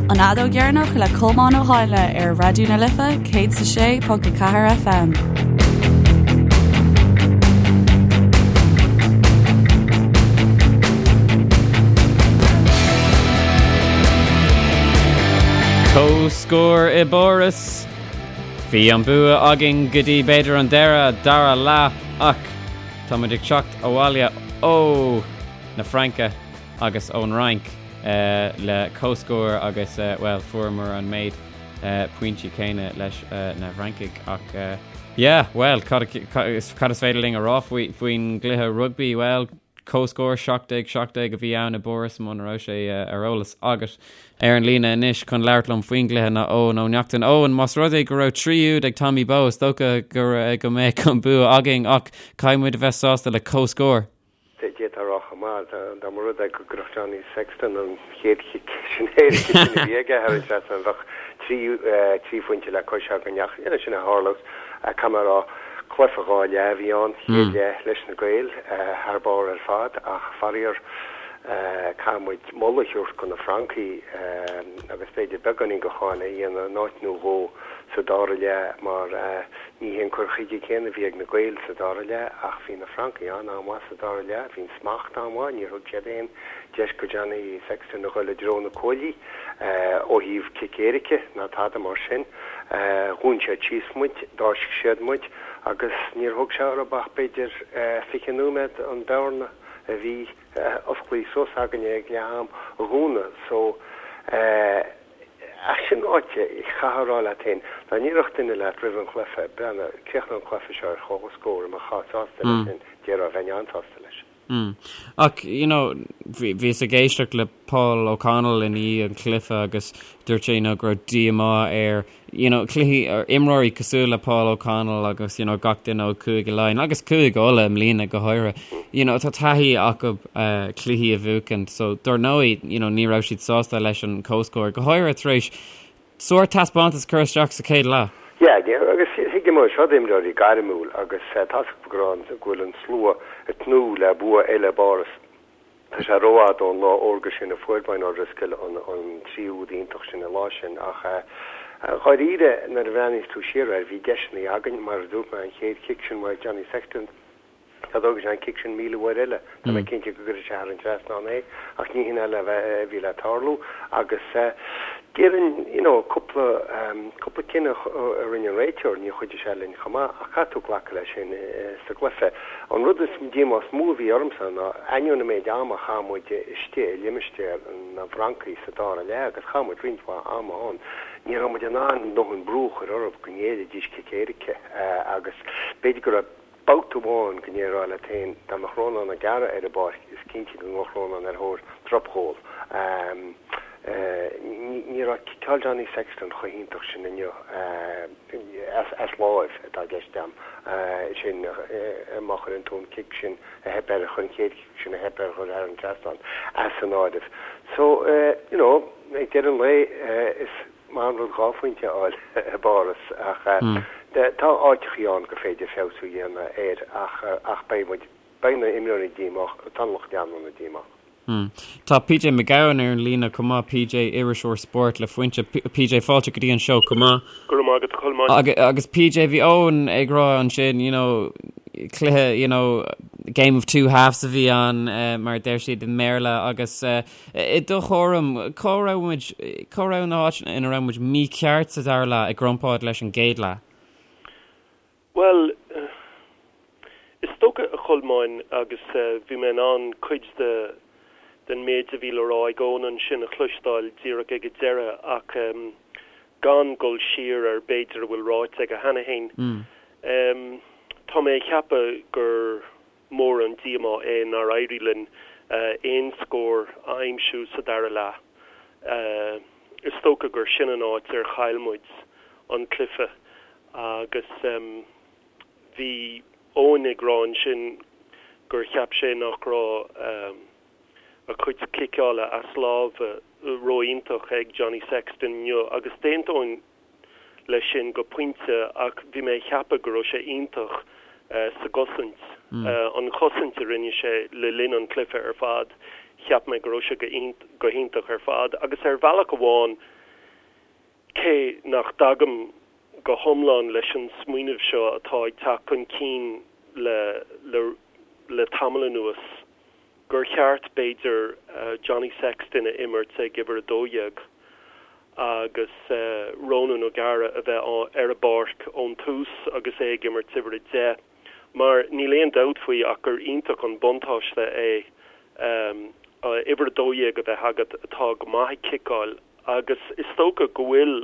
An Fheadóg Dheireanach le Colmán Ó hÁinle ar Raidió na Life 106.4 FM. Comhscór i bPáras. Bhí an bua againn go dtí b'fhéidir an deireadh dara leath ach tá muid ag teacht abhaile ó na Fraince agus ón Fhrainc le comhscór agus, bhuel, fuaireamar an méid pointí céanna leis na Francaigh ach, yeah, bhuel, cad is féidir linn a rá faoin gcluiche rugbaí? Bhuel, comhscór 17, 17 a bhí ann i bPáras muna raibh sé ar eolas agat. Ar an líne anois chun labhairt liom faoin gcluiche ná Eoin Ó Neachtain. Eoin, más rud é go raibh 3 úd ag Tommy Bowe, is dócha go mbeadh an bua againn ach caithfidh muid a bheith sásta le comhscór. D'fhéadfá a rá chomh maith, dá mba rud é go gcuirfeadh Johnny Sexton an chéad chic sin éirice sin a bhí aige thar an trasnán, bheadh 3 phointe le cois againn ach níl sin a tharla. Caithfidh mé a rá, cluiche 2 leath a bhí ann, chéad leath leis na Gaeil thar barr ar fad ach faraor caithfidh muid moladh a thabhairt do na Francaigh agus b'fhéidir beagáinín de cháineadh a dhéanamh in áit nó dhó sa dara leath mar Ní hé an cur chuige céanna a bhí ag na Gaeil sa dara leath ach bhí na Francaigh an-an-mhaith sa dara leath. Bhí an smacht an-mhaith, níor thug siad aon deis go Johnny Sexton a dhul i dtreo na cuaillí ó thaobh cic éirice ná tada mar sin. Dhún siad síos muid, d'fháisc siad muid agus níor thóg sé orthu ach b'fhéidir 20 nóiméad an bhearna a bhí osclaithe suas againne ag leath am a dhúnadh. So. Ach sin ráite, chaithfeá a rá leat féin, dá ndéarfadh duine leat roimh an chluiche, breathnaigh, críochnóidh an cluiche seo ar chomhscór, an mbeifeá sásta leis sin, déarfá, bheinn an-sásta leis. Mm. Ach, you know, bhíos ag éisteacht le Paul O'Connell i ndiaidh an chluiche agus dúirt sé, you know, go raibh díomá air you know, cluichí, imreoirí cosúil le Paul O'Connell agus, you know, gach duine ó Chúige Laighean agus Cúige Uladh i mbliana go háirithe, you know, tá taithí acu uh, cluichí a bhuachan, so dar ndóigh, you know, ní raibh siad sásta leis an comhscór, go háirithe tar éis sórt taispeántas a chur isteach sa chéad leath. Yeah, agus thuigim é seo imreoirí gairmiúil agus tá a fhios acu go raibh go bhfuil an slua ag tnúth le bua eile i bPáras. Tá sé rófhada ón lá órga sin a fuair Brian O'Driscoll an 3 úd iontach sin an lá sin ach dháiríre nuair a bhreathnaíos tú siar air bhí deiseanna againn, mar a dúirt mé an chéad chic sin uaidh Johnny Sexton, dá dtógfadh sé an cic sin 1,000 uair eile tá mé cinnte go gcuirfeadh sé thar an trasnán é ach ní hin a bhí le tarlú agus Déarfainn, you know, cúpla, cúpla cinneadh a rinne an réiteoir, níor chuidigh sé linn chomh maith, ach caithfidh tú glacadh leis sin sa gcluiche. An rud is díomá is mó a bhí ormsa ná, ainneoin an méid ama a chaith muid istigh i limistéar na bhFrancaigh sa dara leath, agus chaith muid roinnt mhaith ama ann, ní raibh muid in ann dóthain brú a chur orthu go ngéillfidís cic éirice agus b'fhéidir go raibh Babhta amháin go ndéarfá leat féin, dá mbeadh Rónán Mac Aodha ar an bpáirc, is cinnte go ngabhfadh Rónán ar thóir dropghól. Ní raibh ciceáil Johnny Sexton chomh hiontach sin inniu, as láimh atá i gceist agam, sin má chuireann tú an cic sin a theip air, an chéad chic sin a theip air a chur thar an trasnán, as an áireamh. So, you know, ag deireadh an lae, is. Maith an rud 2 phointe a fháil i bPáras ach tá áiteachaí ann gur féidir feabhsú a dhéanamh air ach beidh muid, beidh na imreoirí díomách, tá an lucht leanúna díomách. Tá PJ Mac Gabhann ar an líne chomh maith, PJ, iriseoir spóirt le Foinse. PJ, fáilte go dtí an seó chomh maith. Go raibh maith agat, a Cholmáin. Agus PJ, bhí Eoin ag rá ansin, you know, cluiche, you know, game of two halves a bhí ann, mar a deir siad i mBéarla agus, I do thuairim, cá raibh muid, cá raibh na háiteanna ina raibh muid mícheart sa dara leath i gcomparáid leis an gcéad leath? Bhuel, is dócha, a Cholmáin, agus bhí mé in ann cuid de den méid a bhí le rá ag Eoin ansin a chloisteáil díreach ag an deireadh ach gan dul siar ar b'fhéidir a bhfuil ráite aige cheana féin, tá mé ag ceapadh gur mór an díomá é nár éirigh linn aon scór a aimsiú sa dara leath. Is dócha gur sin an áit ar chaill muid an cluiche agus bhí Eoin ag rá ansin gur cheap sé nach raibh a chuid ciceála as lámha ró-iontach ag Johnny Sexton inniu agus d'aontóinn leis sin go pointe ach bhí mé ag ceapadh go raibh sé iontach sa gcosaint. An chosaint a rinne sé le linn an chluiche ar fad, cheap mé go raibh sé go hiontach ar fad agus ar bhealach amháin. Cé nach dtagaim go hiomlán leis an smaoineamh seo atá ag teacht chun cinn le le le tamall anuas, gur cheart, b'fhéidir, Johnny Sexton a imirt ag uimhir 12 agus Ronan O'Gara a bheith ar an bpáirc ón tús agus é ag imirt uimhir 10, mar níl aon dabht faoi ach gur iontach an buntáiste é uimhir 12 a bheith agat atá go maith ag ciceáil agus is dócha go bhfuil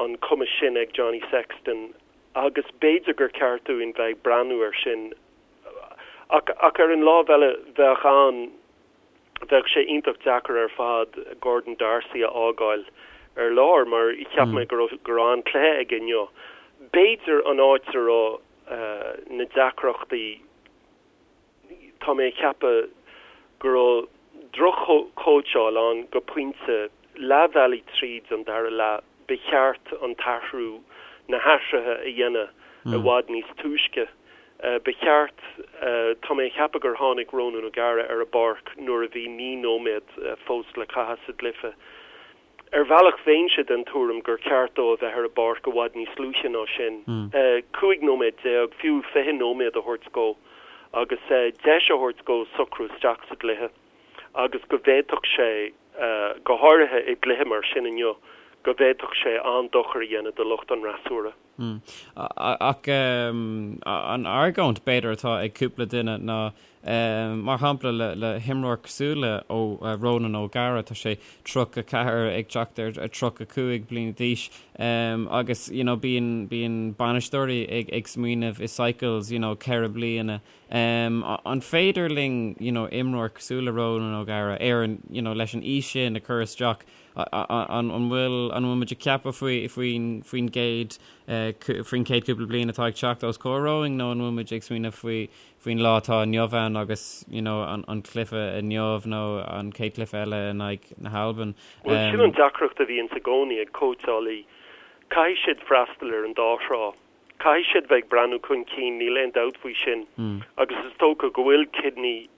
an cumas sin ag Johnny Sexton agus b'fhéidir gur ceart dúinn bheith ag breathnú air sin Ach, ach ar an lámh eile, bheadh an, bheadh sé iontach deacair ar fad Gordon D'Arcy a fhágáil ar lár mar cheap mé go raibh, go raibh an-chluiche aige inniu. B'fhéidir an áit a raibh na deacrachtaí, tá mé ag ceapadh go raibh droch-chóitseáil ann go pointe, leath bhealaigh tríd an dara leath, ba cheart an t-athrú, na hathruithe a dhéanamh i bhfad níos túisce. Ba cheart, tá mé ag ceapadh gur tháinig Ronan O'Gara ar an bpáirc nuair a bhí 9 nóiméad fós le caitheamh sa gcluiche. Ar bhealach bheinnse den tuairim gur ceart dó a bheith ar an bpáirc i bhfad níos luaithe ná sin. 15 nóiméad, fiú 20 nóiméad a thabhairt dhó agus deis a thabhairt dhó socrú isteach sa gcluiche agus go bhféadfadh sé, go háirithe i gcluiche mar sin inniu, go bhféadfadh sé an-dochar a dhéanamh do lucht an fhreasúra. Ach an argóint, b'fhéidir, atá ag cúpla duine ná, mar shampla, le himreoir cosúil le Ronan O'Gara, tá sé 34 ag teacht ar 35 bliana d'aois agus you know bíonn bíonn bainisteoirí ag ag smaoineamh i cycles you know ceithre bliana. An féidir linn you know imreoir cosúil le Ronan O'Gara ar an you know leis an aois sin a chur isteach An bhfuil an bhfuil muid ag ceapadh faoi faoin faoin gcéad faoin chéad cúpla bliain atá ag teacht os comhair romhainn nó an bhfuil muid ag smaoineamh faoi faoin lá atá inniu ann agus you know an an cluiche inniu nó an chéad chluiche eile in aghaidh na hAlban? Bhuel, sin an deacracht a bhíonns i gcónaí ag cóitseálaí. Caithfidh siad freastal ar an dá thrá. Caithfidh siad bheith ag breathnú chun cinn, níl aon dabht faoi sin, agus is dócha go bhfuil Kidney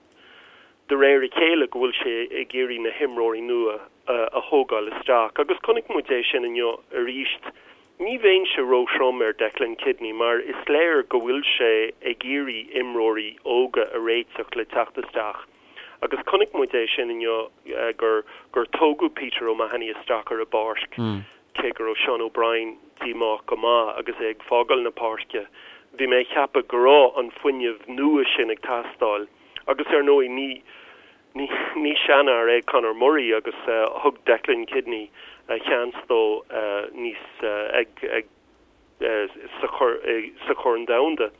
de réir a chéile go bhfuil sé ag iarraidh na himreoirí nua a thógáil isteach agus chonaic muid é sin inniu arís. Ní bheinnse róthrom ar Declan Kidney mar is léir go bhfuil sé ag iarraidh imreoirí óga a réiteach le teacht isteach agus chonaic muid é sin inniu gur gur tógadh Peter O'Mahony isteach ar an bpáirc cé go raibh Sean O'Brien díomách go maith agus é ag fágáil na páirce. Bhí mé ag ceapadh go raibh an fuinneamh nua sin ag teastáil. Agus ar ndóigh ní ní ní seanfhear é Conor Murray agus thug Declan Kidney a sheans dó níos ag ag sa sa Chorn Domhanda.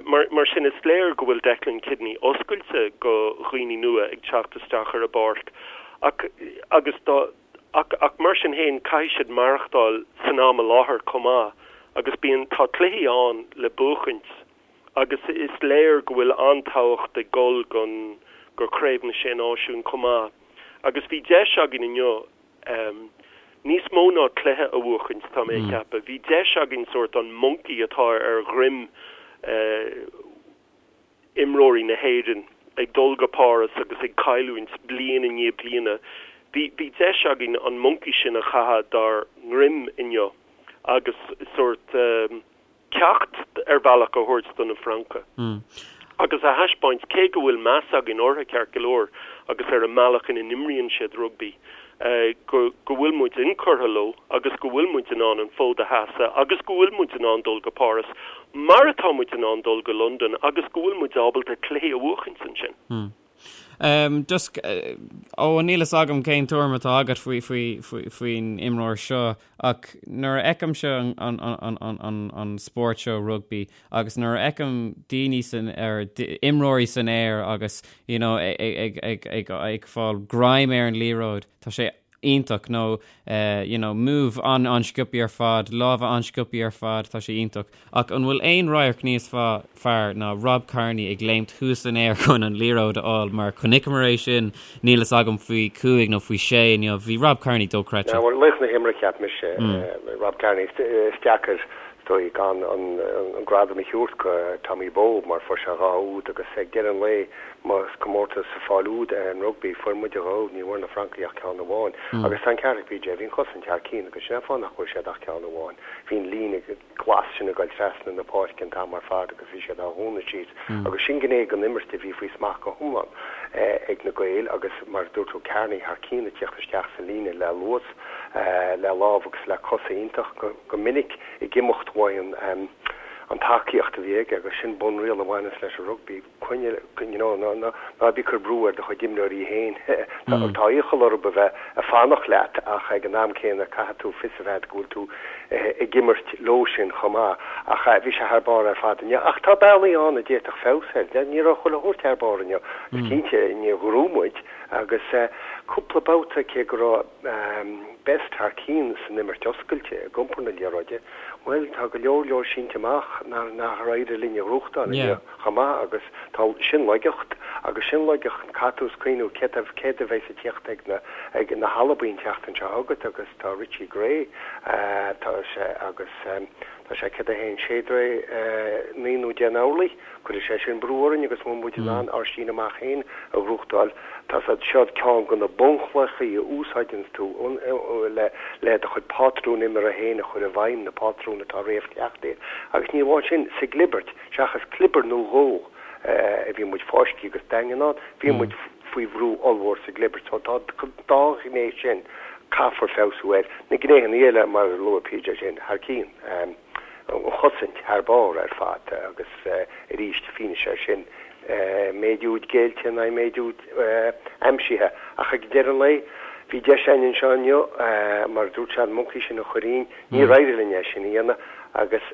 Mar mar sin is léir go bhfuil Declan Kidney oscailte go dhaoine nua ag teacht isteach ar an bpáirc ach agus dá ach ach mar sin féin caithfidh siad maireachtáil san am i láthair chomh maith agus bíonn tá cluichí ann le buachaint. Agus is léir go bhfuil an-tábhacht ag dul gon go Craobh na Sé Náisiún chomh maith. Agus bhí deis againn inniu níos mó ná cluiche a bhuachaint, tá mé ag ceapadh. Bhí deis againn sórt an monkey atá ar dhroim imreoirí na hÉireann ag dul go Páras agus ag cailliúint bliain i ndiaidh bliana, bhí bhí deis againn an monkey sin a chaitheamh dár ndroim inniu agus sórt ceacht ar bhealach a thabhairt do na Francaigh agus a thaispeáint, cé go bhfuil meas againn orthu ceart go leor agus ar an mbealach ina n-imríonn siad rugbaí, go go bhfuil muid inchurtha leo agus go bhfuil muid in ann an fód a sheasamh agus go bhfuil muid in ann dul go Páras mar atá muid in ann dul go Londain agus go bhfuil muid ábalta cluichí a bhuachaint ansin. Just, ó níl fhios agam cén tuairim atá agat faoi, faoi, faoi, faoin imreoir seo ach nuair a fheicimse an, an, an, an, an, an spórt seo rugbaí agus nuair a fheicim daoine san, ar, imreoirí san aer agus you know, ag, ag, ag, ag, ag fáil greim ar an liathróid, tá sé iontach nó you know move an-an-sciobtha ar fad, lámha an-sciobtha ar fad, tá sé iontach. Ach an bhfuil aon radharc níos fearr ná Rob Kearney ag léimt thuas san aer chun an liathróid a fháil mar chonaiceamar é sin, níl fhios agam faoi chúig nó faoi sé inniu, bhí Rob Kearney dochreidte. Bhuel, laoch na himeartha cheap mise, Rob Kearney. Is deacair is dóigh gan an gradam a thabhairt go Tommy Bowe mar fuair sé dhá úd agus ag deireadh an lae. Más comórtas sa pháil úd é an rugbaí, fuair muid a dhó, ní bhfuair na Francaigh ach ceann amháin. Agus tá an ceart ag PJ, bhí an chosaint thar cinn agus sin an fáth nach bhfuair siad ach ceann amháin. Bhí an líne glas sin ag dul trasna na páirce an t-am ar fad agus bhí siad á dhúnadh síos agus sin gné den imirt a bhí faoi smacht go hiomlán ag na Gaeil agus mar a dúirt tú, Kearney thar cinn ag tíocht isteach sa líne le luas, le lámh agus le cosa iontach go minic ag imeacht uaidh an tacaíocht a bhí aige agus sin bunriail a bhaineas leis an rugbaí. Coinnigh, you know, ná, ná, ná bí ag cur brú ar do chuid imreoirí féin. Tá, tá iachall orthu a bheith ag fanacht leat ach ag an am céanna caithfidh tú fios a bheith agat go bhfuil tú ag imirt leo sin chomh maith. Ach bhí sé thar barr ar fad inniu. Ach tá bealaí ann a d'fhéadfadh feabhas air. Ní raibh chuile shórt thar barr inniu. Is cinnte, níor ghnóthaigh muid agus cúpla babhta cé go raibh Best thar cinn san imirt oscailte ag iompar na liathróide, bhuel, tá go leor leor sínte amach nár éirigh linn a ghnóthachtáil inniu. chomh maith agus tá sin laigeacht agus sin laigeacht caithfidh tú cuimhniú céard a céard a bheas ag tíocht ag na ag na hAlbain an tseachtain seo chugat agus tá Richie Gray tá sé agus tá sé 1 1 6 9 nó 10 n-orlaí cuirfidh sé sin brú orainn agus mura bhfuil muid in ann ár síneadh amach féin a ghnóthachtáil tá siad seo ceann de na bunchlochaí a úsáideanns tú le le do chuid pátrún imeartha féin a chur i bhfeidhm na pátrúin atá réamhchleachtaithe agus ní amháin sin sa gclibirt Seachas clibir nó dhó a bhí muid fáiscthe agus daingean ann, bhí muid faoi bhrú ollmhór sa gclibirt. So tá an dá ghné sin, caithfear feabhsú air. Na gnéithe eile, mar a luaigh PJ sin, thar cinn. An chosaint thar barr ar fad agus arís fianaise air sin, méid úd géillte in aghaidh méid úd aimsithe. Ach ag deireadh an lae, bhí deis againn anseo inniu, mar a dúirt sé, an moncaí sin a chur dhínn. Níor éirigh linn é sin a dhéanamh agus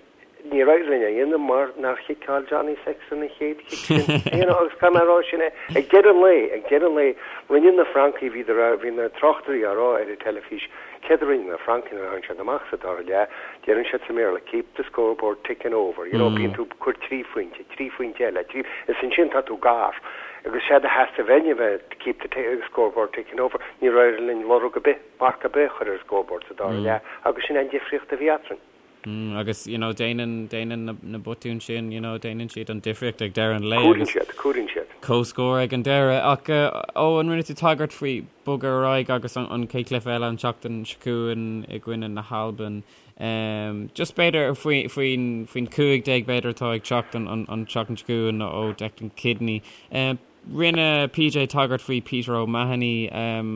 Níor éirigh linn é a dhéanamh mar nár chiceáil Johnny Sexton an chéad chic sin. You know, agus caithfidh mé a rá sin é. Ag deireadh an lae, ag deireadh an lae, rinne na Francaigh, bhíodar, bhí na tráchtairí á rá ar an teilifís, céard a rinne na Francaigh nuair a tháinig siad amach sa dara leath, deireann siad sa mBéarla, keep the scoreboard ticking over, you know, bíonn tú ag cur trí phointe, trí phointe eile, trí, is ansin tá tú gar. Agus séard a theastaigh uainn a bheith, keep the scoreboard ticking over, níor éirigh linn lorg ar bith, marc ar bith a chur ar an scoreboard sa dara leath agus sin an difríocht a bhí eadrainn. Agus, you know, déanann, déanann na, na botúin sin, you know, déanann siad an difríocht ag deireadh an lae Cuireann siad, cuireann siad. Comhscór ag an deireadh. Ach, ó, an rinne tú tagairt faoi bogadh ar aghaidh agus an, an chéad chluiche eile an tseachtain seo chugainn i gcoinne na hAlban. Um, just b'fhéidir faoi, faoin, faoin 15 b'fhéidir atá ag teacht an, an, an tseachtain seo chugainn ó Declan Kidney. Um, Rinne PJ tagairt faoi Peter O'Mahony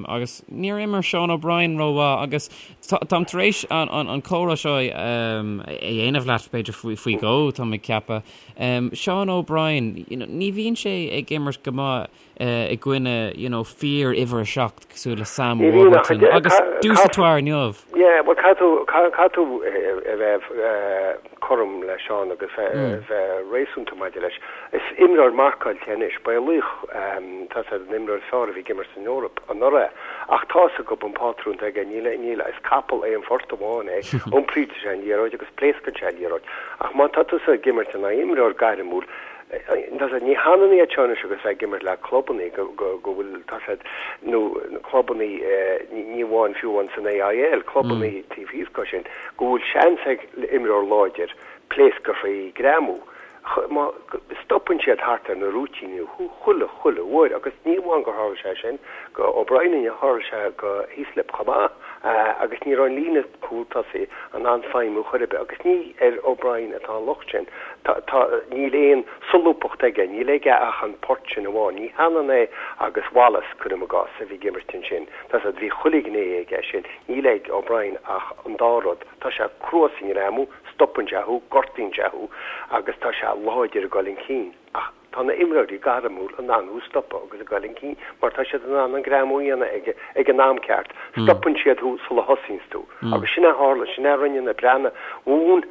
agus níor imir Sean O'Brien rómhaith agus táim tar éis an comhrá seo a dhéanamh leat b'fhéidir faoi dhó, táim ag ceapadh. Sean O'Brien, ní bhíonn sé ag imirt go maith i gcoinne you know fíor uimhir a 7 cosúil le Sam Warburton agus Dusautoir inniu. Yeah, bhuel caithfidh tú a bheith cothrom le Seán agus bheith réasúnta maidir leis. Is imreoir marcáilte anois. Ba é laoch, tá sé an imreoir is fearr a bhí ag imirt san Eoraip anuraidh. Ach tá fhios agat an pátrún atá aige, níl, níl, is capall aon phort amháin é. Iompraíonn sé an liathróid agus pléascann sé an liathróid. Ach má tá tusa ag imirt in aghaidh imreoir gairmiúil, tá sé, ní hionann iad seo anois agus bheith ag imirt le clubannaí go, go, go bhfuil, tá sé, nó clubannaí, ní amháin fiú amháin san AIL, clubannaí taobh thíos de sin, go bhfuil seans ag imreoir láidir pléascadh faoi ghreamú. Má stopann siad thart ar na rúitíní thú chuile, chuile uair agus ní amháin gur tharla sé sin go O'Brien inniu, tharla sé go Heaslip chomh maith agus ní raibh an líne cúl tosaigh in ann feidhmiú chor ar bith agus ní ar O'Brien atá an locht sin. Tá, tá, níl aon solúbthacht aige, níl aige ach an port sin amháin. Ní hionann é agus Wallace, cuirim i gcás, a bhí ag imirt ansin. Tá siad, bhí chuile ghné aige sin. Níl ag O'Brien ach an dá rud. Tá sé crua sa ngreamú, stopann sé thú, gortaíonn sé thú agus tá sé láidir ag dul chun cinn. Ach tá na imreoirí gairmiúil in ann thú a stopadh agus ag dul chun cinn mar tá siad in ann an greamú a dhéanamh ag ag an am ceart. Stopann siad thú sula thosaíonns tú. Agus sin a tharla, sin a rinne na Breathnaigh. Mhúin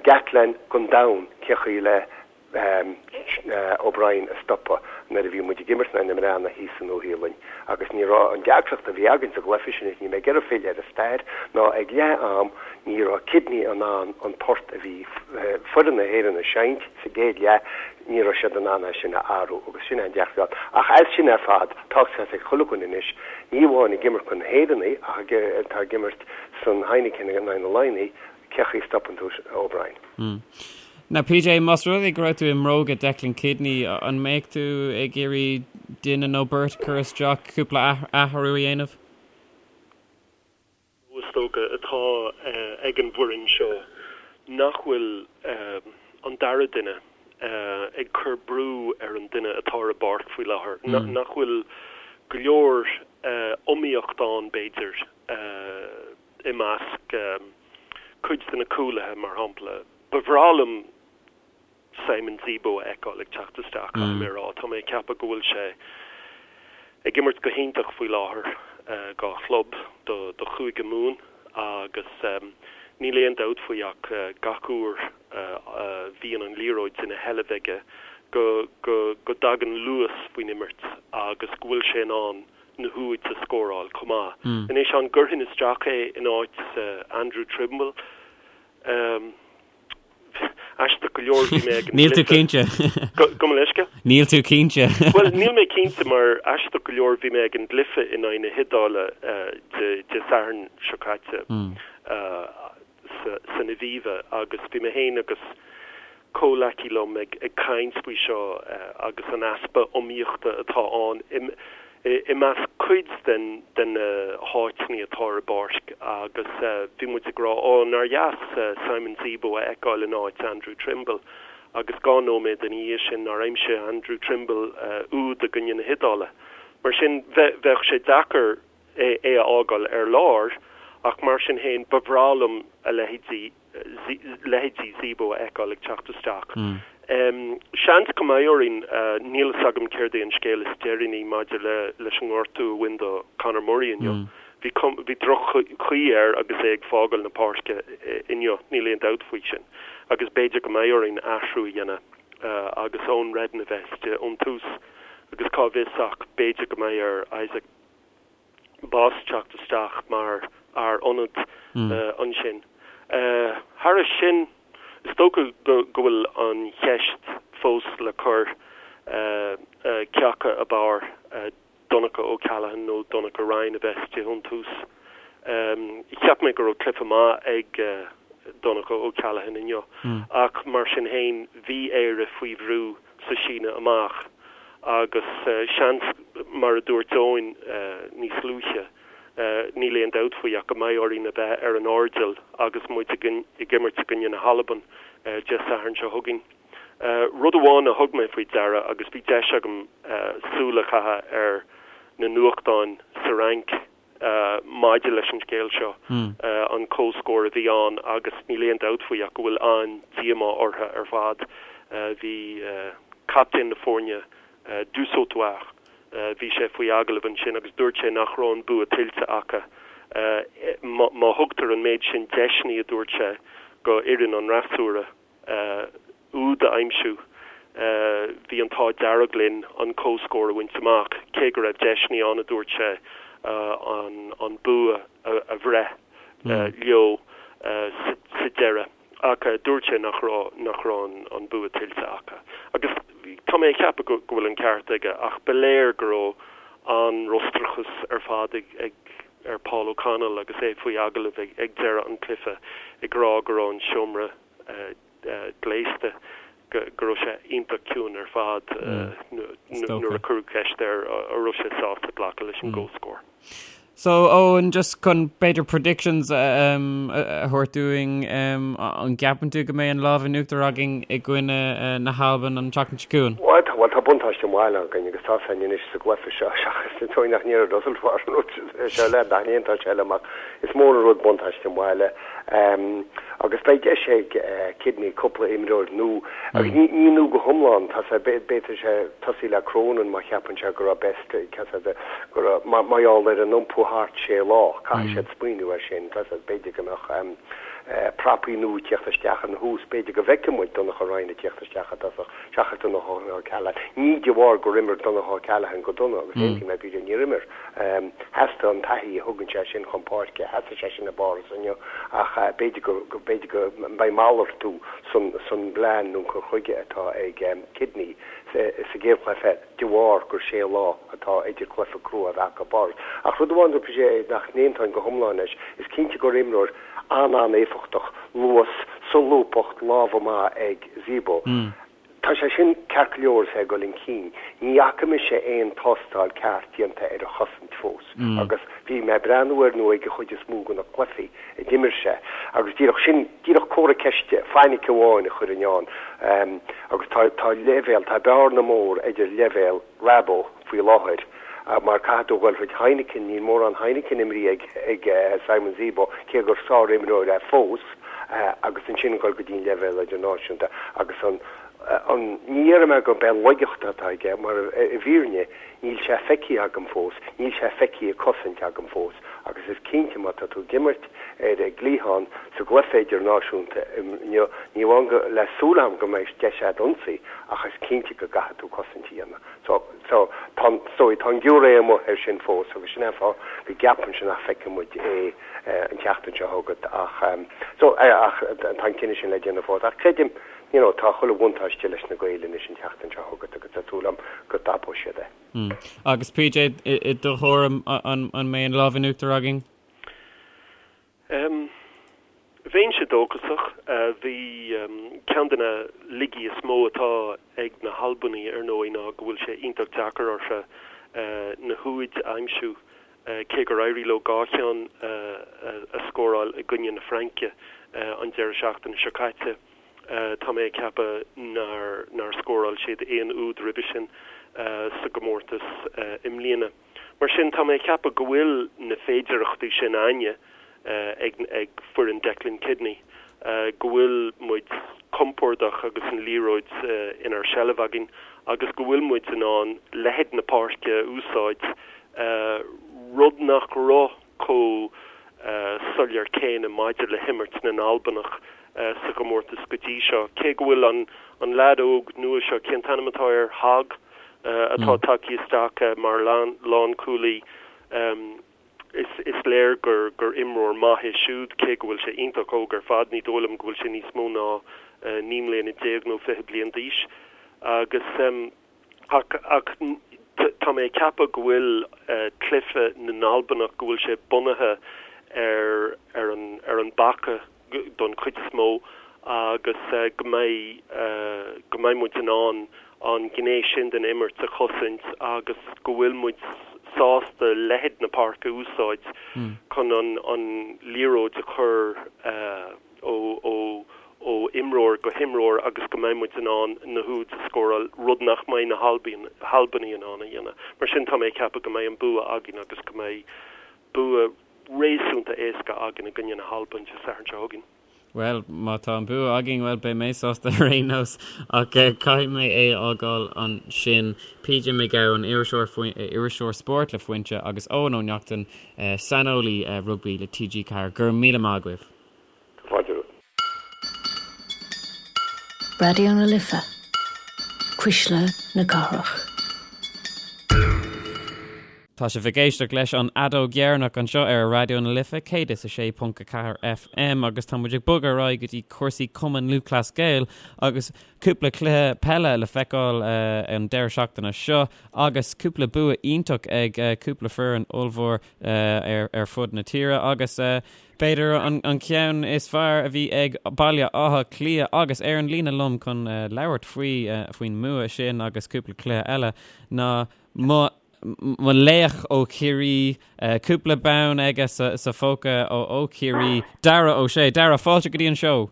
Gatland don domhan cé chaoi le O'Brien a stopadh nuair a bhí muid ag imirt in aghaidh na mBreathnach thíos sa Nua-Shéalainn agus ní raibh an deacracht a bhí againn sa gcluiche sin, is níl mé ag iarraidh filleadh ar an stair, ná ag leath am ní raibh Kidney in ann an port a bhí foireann na hÉireann ag seinnt sa gcéad leath, ní raibh siad in ann é sin a athrú agus sin an deacracht. Ach as sin ar fad, tá a fhios ag chuile dhuine anois, ní amháin ag imirt chun na hÉireannaigh ach atá ag imirt san Heineken in aghaidh na Laighnigh, cé chaoi a stopann tú O'Brien. Now PJ, más rud é go raibh tú i mbróga Declan Kidney, an mbeadh tú ag iarraidh duine nó beirt a chur isteach, cúpla athrú a dhéanamh? Is dócha atá ag an bhfoireann seo nach bhfuil an dara duine ag cur brú ar an duine atá ar an bpáirc faoi láthair, nach bhfuil go leor iomaíocht ann b'fhéidir i measc cuid de na cúlaithe, mar shampla. Ba bhreá liom Simon Zebo a fheiceáil ag teacht isteach, caithfidh mé a rá. Tá mé ag ceapadh go bhfuil sé ag imirt go hiontach faoi láthair dá chlub, do Chúige Mumhan, agus níl aon dabht faoi ach gach uair a bhíonn an liathróid ina sheilbh aige go go dtagann luas faoin imirt agus go bhfuil sé in ann na húid a scóráil chomh maith. Anois, an gcuirfinn isteach é in áit Andrew Trimble? Aisteach go leor, bhí mé ag an Níl tú cinnte. Gabh mo leithscéal? Níl tú cinnte. Bhuel, níl mé cinnte mar aisteach go leor bhí mé ag an gcluiche in aghaidh na hIodáile Dé Sathairn seo caite. san Aviva agus bhí mé féin agus comhleacaí liom ag caint faoi seo agus an easpa iomaíochta atá ann i measc cuid de na háiteanna atá ar an bpáirc agus bhí muid ag rá ó nár dheas Simon Zebo a fheiceáil in áit Andrew Trimble agus 2 nóiméad ina dhiaidh sin nár aimsigh Andrew Trimble úd i gcoinne na hIodáile. Mar sin bheadh sé deacair é a fhágáil ar lár ach mar sin féin ba bhreá liom a leithéidí leithéidí Zebo a fheiceáil ag teacht isteach. Seans go mbeidh orainn, níl fhios agam céard é an scéal is deireanaí maidir le leis an ngortú a bhain do Conor Murray inniu. Bhí bhí droch-chaoi air agus é ag fágáil na páirce inniu, níl aon dabht faoi sin. Agus b'fhéidir go mbeidh orainn athrú a dhéanamh agus Eoin Reddan a bheith istigh ón tús agus cá bhfios ach b'fhéidir go mbeidh ar Isaac Boss teacht isteach mar fhear ionaid ansin. Thairis sin, is dócha go bhfuil an cheist fós le cur cé acu ab fhearr Donncha O'Callaghan nó Donnacha Ryan a bheith istigh ón tús. Cheap mé go raibh cluiche maith ag Donncha O'Callaghan inniu ach mar sin féin bhí Éire faoi bhrú sa síneadh amach agus seans, mar a dúirt Eoin níos luaithe, níl aon dabht faoi ach go mbeidh orainn a bheith ar an airdeall agus muid ag imirt i gcoinne na hAlban Dé Sathairn seo chugainn. Rud amháin a thug mé faoi deara agus bhí deis agam súil a chaitheamh ar na nuachtáin sa Fhrainc, maidir leis an scéal seo, an comhscór a bhí ann agus níl aon dabht faoi ach go bhfuil an-díomá orthu ar fad. Bhí captaen na foirne, Dusautoir, bhí sé faoi agallamh ansin agus dúirt sé nach raibh an bua tuillte acu. Má thugtar an méid sin deiseanna, a dúirt sé, go fhoireann an fhreasúra, úd a aimsiú. Bhí an t-ádh dearg linn an comhscór a bhaint amach, cé go raibh deiseanna ann, a dúirt sé, an bua a bhreith leo sa deireadh. Ach dúirt sé nach raibh nach raibh an bua tuillte acu. Agus tá mé ag ceapadh go bhfuil an ceart aige, ach ba léir go raibh an-fhrustrachas ar fad ag ar Paul O'Connell agus é faoi agallamh ag deireadh an chluiche ag rá go raibh an seomra gléasta, go raibh sé iontach ciúin ar fad nuair a cuireadh ceist air an raibh sé sásta glacadh leis an gcomhscór. So Eoin, just chun b'fhéidir predictions a thabhairt dúinn, an gceapann tú go mbeidh an lámh in uachtar againn i gcoinne na hAlban an tseachtain seo chugainn? Bhuel, tá, tá buntáiste an bhaile againn agus tá san anois sa gcluiche seo seachas an dóigh nach ndéarfadh Russell an rud seo le nach ndéanfadh sé liom ach is mór an rud buntáiste an bhaile. Agus beidh deis ag Kidney cúpla imreoir nua, agus ní nua go hiomlán, tá sé, b'fhéidir sé tosaí le Cronin má cheapann sé go raibh Best, go raibh, mar gheall ar an iompú thart sé lá, caithfidh siad smaoineamh air sin, tá sé, b'fhéidir go mbeadh prapaí nua ag tíocht isteach ina thús, b'fhéidir go bhfeicfidh muid Donnacha Ryan ag tíocht isteach i dtosach seachas Donncha O'Callaghan. Ní de bharr gur imir Donncha O'Callaghan go dona, agus aontaím le PJ, níor imir. Theastaigh an taithí a thugann sé sin chun páirce, theastaigh sé sin i bPáras inniu ach b'fhéidir go, b'fhéidir go mbeidh malartú san, san bplean nó an cur chuige atá ag Kidney sa gcéad chluiche de bharr gur sé lá atá idir cluiche crua a bheith acu i bPáras. Ach rud amháin dúirt PJ nach n-aontóinn go hiomlán leis, is cinnte gur imreoir an-an-éifeachtach, luas, Solúbthacht, lámha maith ag Zebo. Tá sé sin ceart go leor is é ag dul chun cinn. Ní fhaca mise aon tástáil ceart déanta ar a chosaint fós agus bhí mé ag breathnú air nó ag an chuid is mó de na cluichí a d'imir sé agus díreach sin, díreach comhartha ceiste, fainic amháin a chuirfinn ann agus tá, tá leibhéal, tá bearna mór idir leibhéal Rabo faoi láthair mar caithfidh tú a dhul thríd Heineken, níl mórán Heineken imrithe ag Simon Zebo cé gur sár-imreoir é fós agus ansin dhul go dtí an leibhéal idirnáisiúnta agus an an ní déarfaidh mé gurb é laigeacht atá aige mar i bhfírinne níl sé feicthe agam fós, níl sé feicthe ag cosaint agam fós agus is cinnte má tá tú ag imirt ar an gcliathán sa gcluiche idirnáisiúnta inniu, ní amháin go le súil agam go mbeidh deis agat ionsaí ach is cinnte go gcaithfidh tú cosaint a dhéanamh. So, so, tá, so, tá an giúiré amuigh air sin fós agus sin é an fáth go gceapaimse nach bhfeicfidh muid é an tseachtain seo chugat ach, so, ach tá an cinneadh sin le déanamh fós. Ach creidim, you know, tá chuile bhuntáiste leis na Gaeil anois an tseachtain seo chugat agus tá súil agam go dtapóidh siad é. Agus PJ, i do thuairim, an mbeidh an lámh in uachtar againn? Bheinnse dóchasach. Bhí ceann de na laigí is mó atá ag na hAlbanaigh, ar ndóigh, ná go bhfuil sé iontach deacair orthu na húid a aimsiú, cé gur éirigh leo 2 cheann a scóráil i gcoinne na Fraince an deireadh seachtaine seo caite. Tá mé ag ceapadh nár scóráil siad aon úd roimhe sin sa gcomórtas i mbliana. Mar sin, tá mé ag ceapadh go bhfuil na féidearthachtaí sin againne ag foireann Declan Kidney, go bhfuil muid compordach agus an liathróid inár seilbh againn agus go bhfuil muid in ann leithead na páirce a úsáid, rud nach raibh chomh soiléir céanna maidir le himirt na nAlbanach sa gcomórtas go dtí seo. Cé go bhfuil an leaid óg nua seo, cén t-ainm atá air, Hogg, atá tagtha isteach mar lánchúlaí, is léir gur imreoir maith é siúd, cé go bhfuil sé iontach óg ar fad, ní dóigh liom go bhfuil sé níos mó ná 19 mbliana nó 20 bliain d'aois. Agus. Ach tá mé ag ceapadh go bhfuil cluiche na nAlbanach, go bhfuil sé bunaithe ar ar an ar an bpaca don chuid is mó agus go mbeidh go mbeidh muid in ann an ghné sin den imirt a chosaint agus go bhfuil muid sásta leithead na páirce a úsáid chun an an liathróid a chur ó ó imreoir go himreoir agus go mbeidh muid in ann na húid a scóráil, rud nach mbeidh na hAlbanaigh in ann a dhéanamh. Mar sin, tá mé ag ceapadh go mbeidh an bua againn agus go mbeidh bua réasúnta éasca againn i gcoinne na hAlban Dé Sathairn seo chugainn. Bhuel, má tá an bua againn, bhuel, beidh mé sásta ar aon nós, ach caithfidh mé é a fhágáil ansin. PJ Mac Gabhann, iriseoir, iriseoir spóirt le Foinse, agus Eoin Ó Neachtain, saineolaí rugbaí le TG4. Go raibh míle maith agaibh. Fáilte romhat. Raidió na Life, Cuisle na Cathrach. Tá sibh ag éisteacht leis an Fheadóg Dheireanach anseo ar Raidió na Life 106.4 FM agus tá muid ag bogadh ar aghaidh go dtí cúrsaí Cumann Lúthchleas Gael agus cúpla cluiche peile le feiceáil an deireadh seachtaine seo agus cúpla bua iontach ag cúpla foireann ollmhór ar fud na tíre agus B'fhéidir an ceann is fearr a bhí ag Baile Átha Cliath agus ar an líne liom chun labhairt faoi faoin mbua sin agus cúpla cluiche eile ná mo mo laoch ó Chiarraí, cúpla bonn aige sa phóca ó Chiarraí, Darragh Ó Sé. Darragh, fáilte go dtí an seó.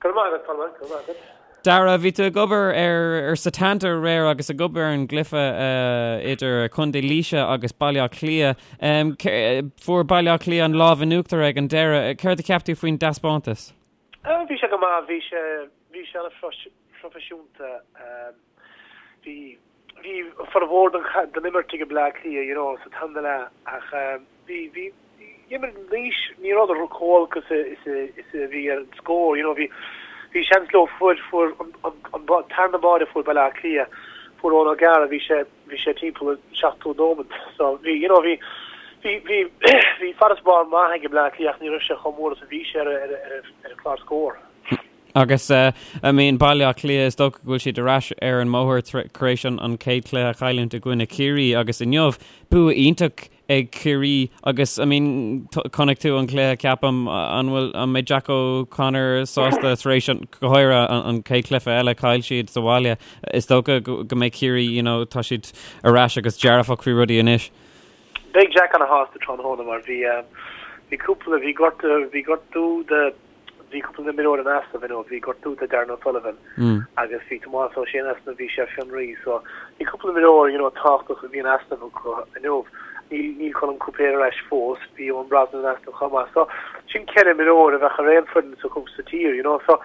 Go raibh maith agat, Colmán, go raibh maith agat. Darragh, bhí tú ag obair ar ar Setanta aréir agus ag obair ar an gcluiche idir Contae Laoise agus Baile Átha Cliath. Fuair Baile Átha Cliath an lámh in uachtar ag an deireadh. Céard a cheap tú faoin dtaispeántas? Bhí sé go maith, bhí sé bhí sé an-phroifisiúnta. Bhí bhí formhór den den imirt ag Bleá Cliath, you know, sa tarna leath ach bhí bhí imir Laois ní rabhadar chomh holc is a is a is a bhí ar an scór, you know, bhí bhí seans leo fuair fuair an an an tarna báide a fuair Baile Átha Cliath fuair Eoin O'Gara bhí sé bhí sé timpeall an 70 nóiméad so bhí you know bhí bhí bhí bhí farasbarr maith ag Bleá Cliath ach ní raibh sé chomh mór is a bhí sé ar ar ar ar an chlár scór. Agus I mean Baile Átha Cliath, is dócha go bhfuil siad ar ais ar an mbóthar tar éis an chéad chluiche a chailliúint i gcoinne Chiarraí agus inniu, bua iontach ag Ciarraí agus I mean chonaic tú an cluiche ceapaim an bhfuil an mbeidh Jack O'Connor sásta tar éis an go háirithe an chéad chluiche eile chaill siad sa bhaile is dócha go mbeidh Ciarraí you know tá siad ar ais agus dearfach faoi rudaí anois. Beidh Jack ana shásta tráthnóna mar bhí bhí cúpla bhí gortú bhí gortú do Bhí cúpla imreoir in easnamh inniu, bhí gortú do Darran O'Sullivan agus bhí Tomás Ó Sé in easnamh, bhí sé ar fionraí so bhí cúpla imreoir you know tábhachtach a bhí in easnamh acu inniu. Níl níl Colm Cúipéir ar ais fós, bhí Eoin Brosnan in easnamh chomh maith so sin ceithre imreoir a bheadh ar aon foireann sa sa tír you know so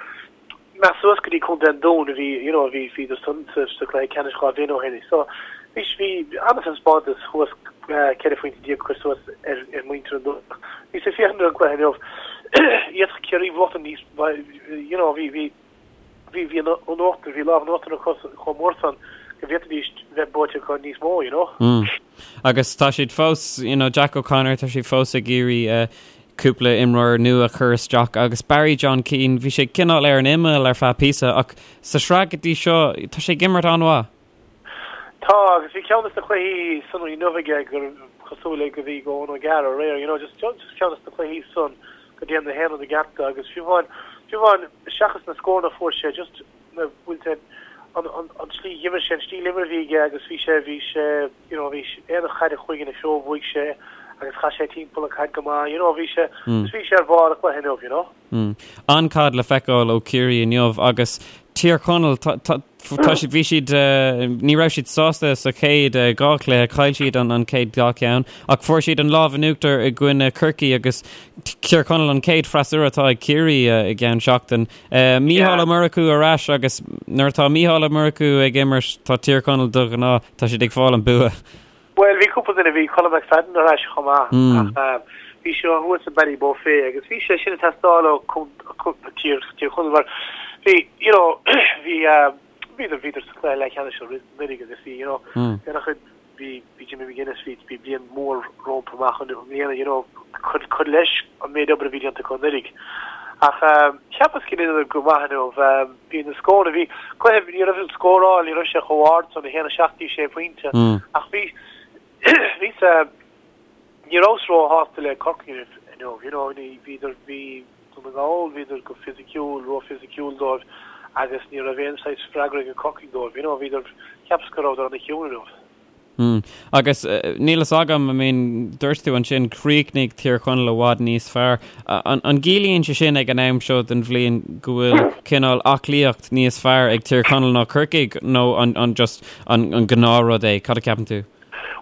Meas suas go dtí Contae an Dúin a bhí, you know, a bhí, bhíodar san sa, sa chluiche ceannais 2 bhliain ó shin. So, bhí, bhí an-taispeántas thuas, 14 phointe a chur suas ar, ar mhuintir an Dúin. Bhíos ag féachaint ar an gcluiche inniu. D'fhéadfadh Ciarraí buachtaint níos, you know, bhí, bhí, bhí, bhí an, an uachtar, bhí lámh in uachtar acu chomh mór san go bhféadfaidís bheith buaite acu níos mó, you know. Mm. Agus tá siad fós, you know, Jack O'Connor, tá siad fós ag iarraidh uh, cúpla imreoir nua a chur isteach agus Barry John Keane, bhí sé cineál ar an imeall ar feadh píosa ach sa sraith go dtí seo tá sé ag imirt an-mhaith. Tá, agus bhí ceann de na cluichí san inniu aige gur cosúil le go bhí ag Eoin O'Gara aréir, you know, just, just ceann de na cluichí san go dtéann na haon rud i gceart agus fiú amháin, fiú amháin seachas na scóranna a fuair sé, just na, bhfuil sé, an, an, an tslí d'imir sé, an stíl imeartha a bhí aige agus bhí sé, bhí sé, you know, bhí aon chaid a chuaigh ina threo bhuaigh sé agus chaith sé timpeall an chaid go maith, you know, bhí sé, mm. bhí sé ar bharr a chluiche inniu, you know. Mm. An-chaid le feiceáil ó Chiarraí inniu agus Tír Chonaill tá siad bhí siad eh, ní raibh siad sásta sa chéad eh, dhá chluiche, chaill siad an an chéad dhá cheann ach fuair siad an lámh in uachtar i gcoinne Chorcaí agus Tír Chonaill an chéad freasúra atá ag Ciarraí eh, i gceann seachtain. Mícheál Ó Murchú ar ais agus nuair atá Mícheál Ó Murchú ag imirt tá Tír Chonaill de ghnáth, tá siad ag fáil an bua. Bhuel, bhí cúpla duine, bhí Colm McFadden ar ais chomh maith ach bhí sé thuas i Ballybofey agus bhí sé sin ag teastáil ó Tír Chonaill mar bhí, you know, bhí, bhíodar, bhíodar sa chluiche leathcheannais anuraidh agus bhí, you know, bhí an-chuid Bhí, bhí Jimmy McGuinness, bhí, bhí bliain mhór rompu amach i mbliana, you know, cur, cur leis an méid obair a bhí déanta acu anuraidh. Ach cheapas go ndearnadar go maith inniu, bhí na scóranna, bhí cluiche, ní raibh an scóráil, ní raibh sé chomh ard san, 1, 7 dtí 6 pointe, ach bhí, bhí sa, ní rabhas róshásta le Corcaigh inniu, you know, ní, bhíodar, bhí Dún na nGall, bhíodar go fisiciúil, ró-fhisiciúil dóibh agus ní raibh aon saghas freagra ag Corcaigh dóibh, you know, bhíodar, cheapas go rabhadar ana-chiúin inniu. Mm. Agus níl fhios agam, I mean, dúirt tú ansin, chríochnaigh Tír Chonaill i bhfad níos fearr. An, an gciallaíonn sé sin ag an am seo den bhliain go bhfuil cineál aclaíocht níos fearr ag Tír Chonaill ná Corcaigh nó an, an just an, an gnáthrud é? Cad a ceapann tú?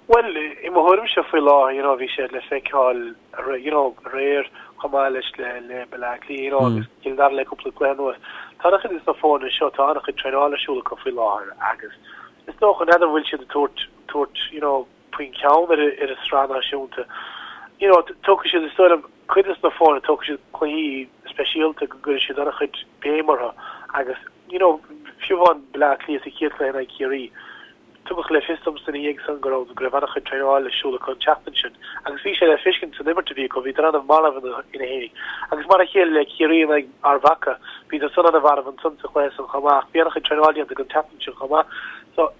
Bhuel, i mo thuairimse faoi láthair, you know, bhí sé le feiceáil you know, aréir chomh maith leis le le Baile Átha Cliath, you know, agus Cill Dara le cúpla cluiche anuas. Tá an-chuid de na foirne seo, tá an-chuid traenála ar siúl acu faoi láthair agus is dócha, n'fheadar an bhfuil siad ag tabhairt, tabhairt, you know, faoin ceann ar ar an sraith náisiúnta. You know, tógfaidh siad, is dóigh liom, cuid de na foirne, tógfaidh siad cluichí speisialta go gcuirfidh siad an-chuid béim orthu agus, you know, fiú amháin Baile Átha Cliath sa chéad chluiche in aghaidh Chiarraí, Tugadh le fios domsa ina dhiaidh san go raibh go raibh an-chuid traenáil ar siúl acu an tseachtain sin agus bhí sé le feiscint san imirt a bhí acu, bhíodar an-mharbh ina fhéinig. Agus mar a chéile le Ciarraí in aghaidh Ard Mhacha, bhíodar san an-mharbh ansan sa chluiche san chomh maith ach bhí an-chuid traenáil déanta acu an tseachtain sin chomh maith. So,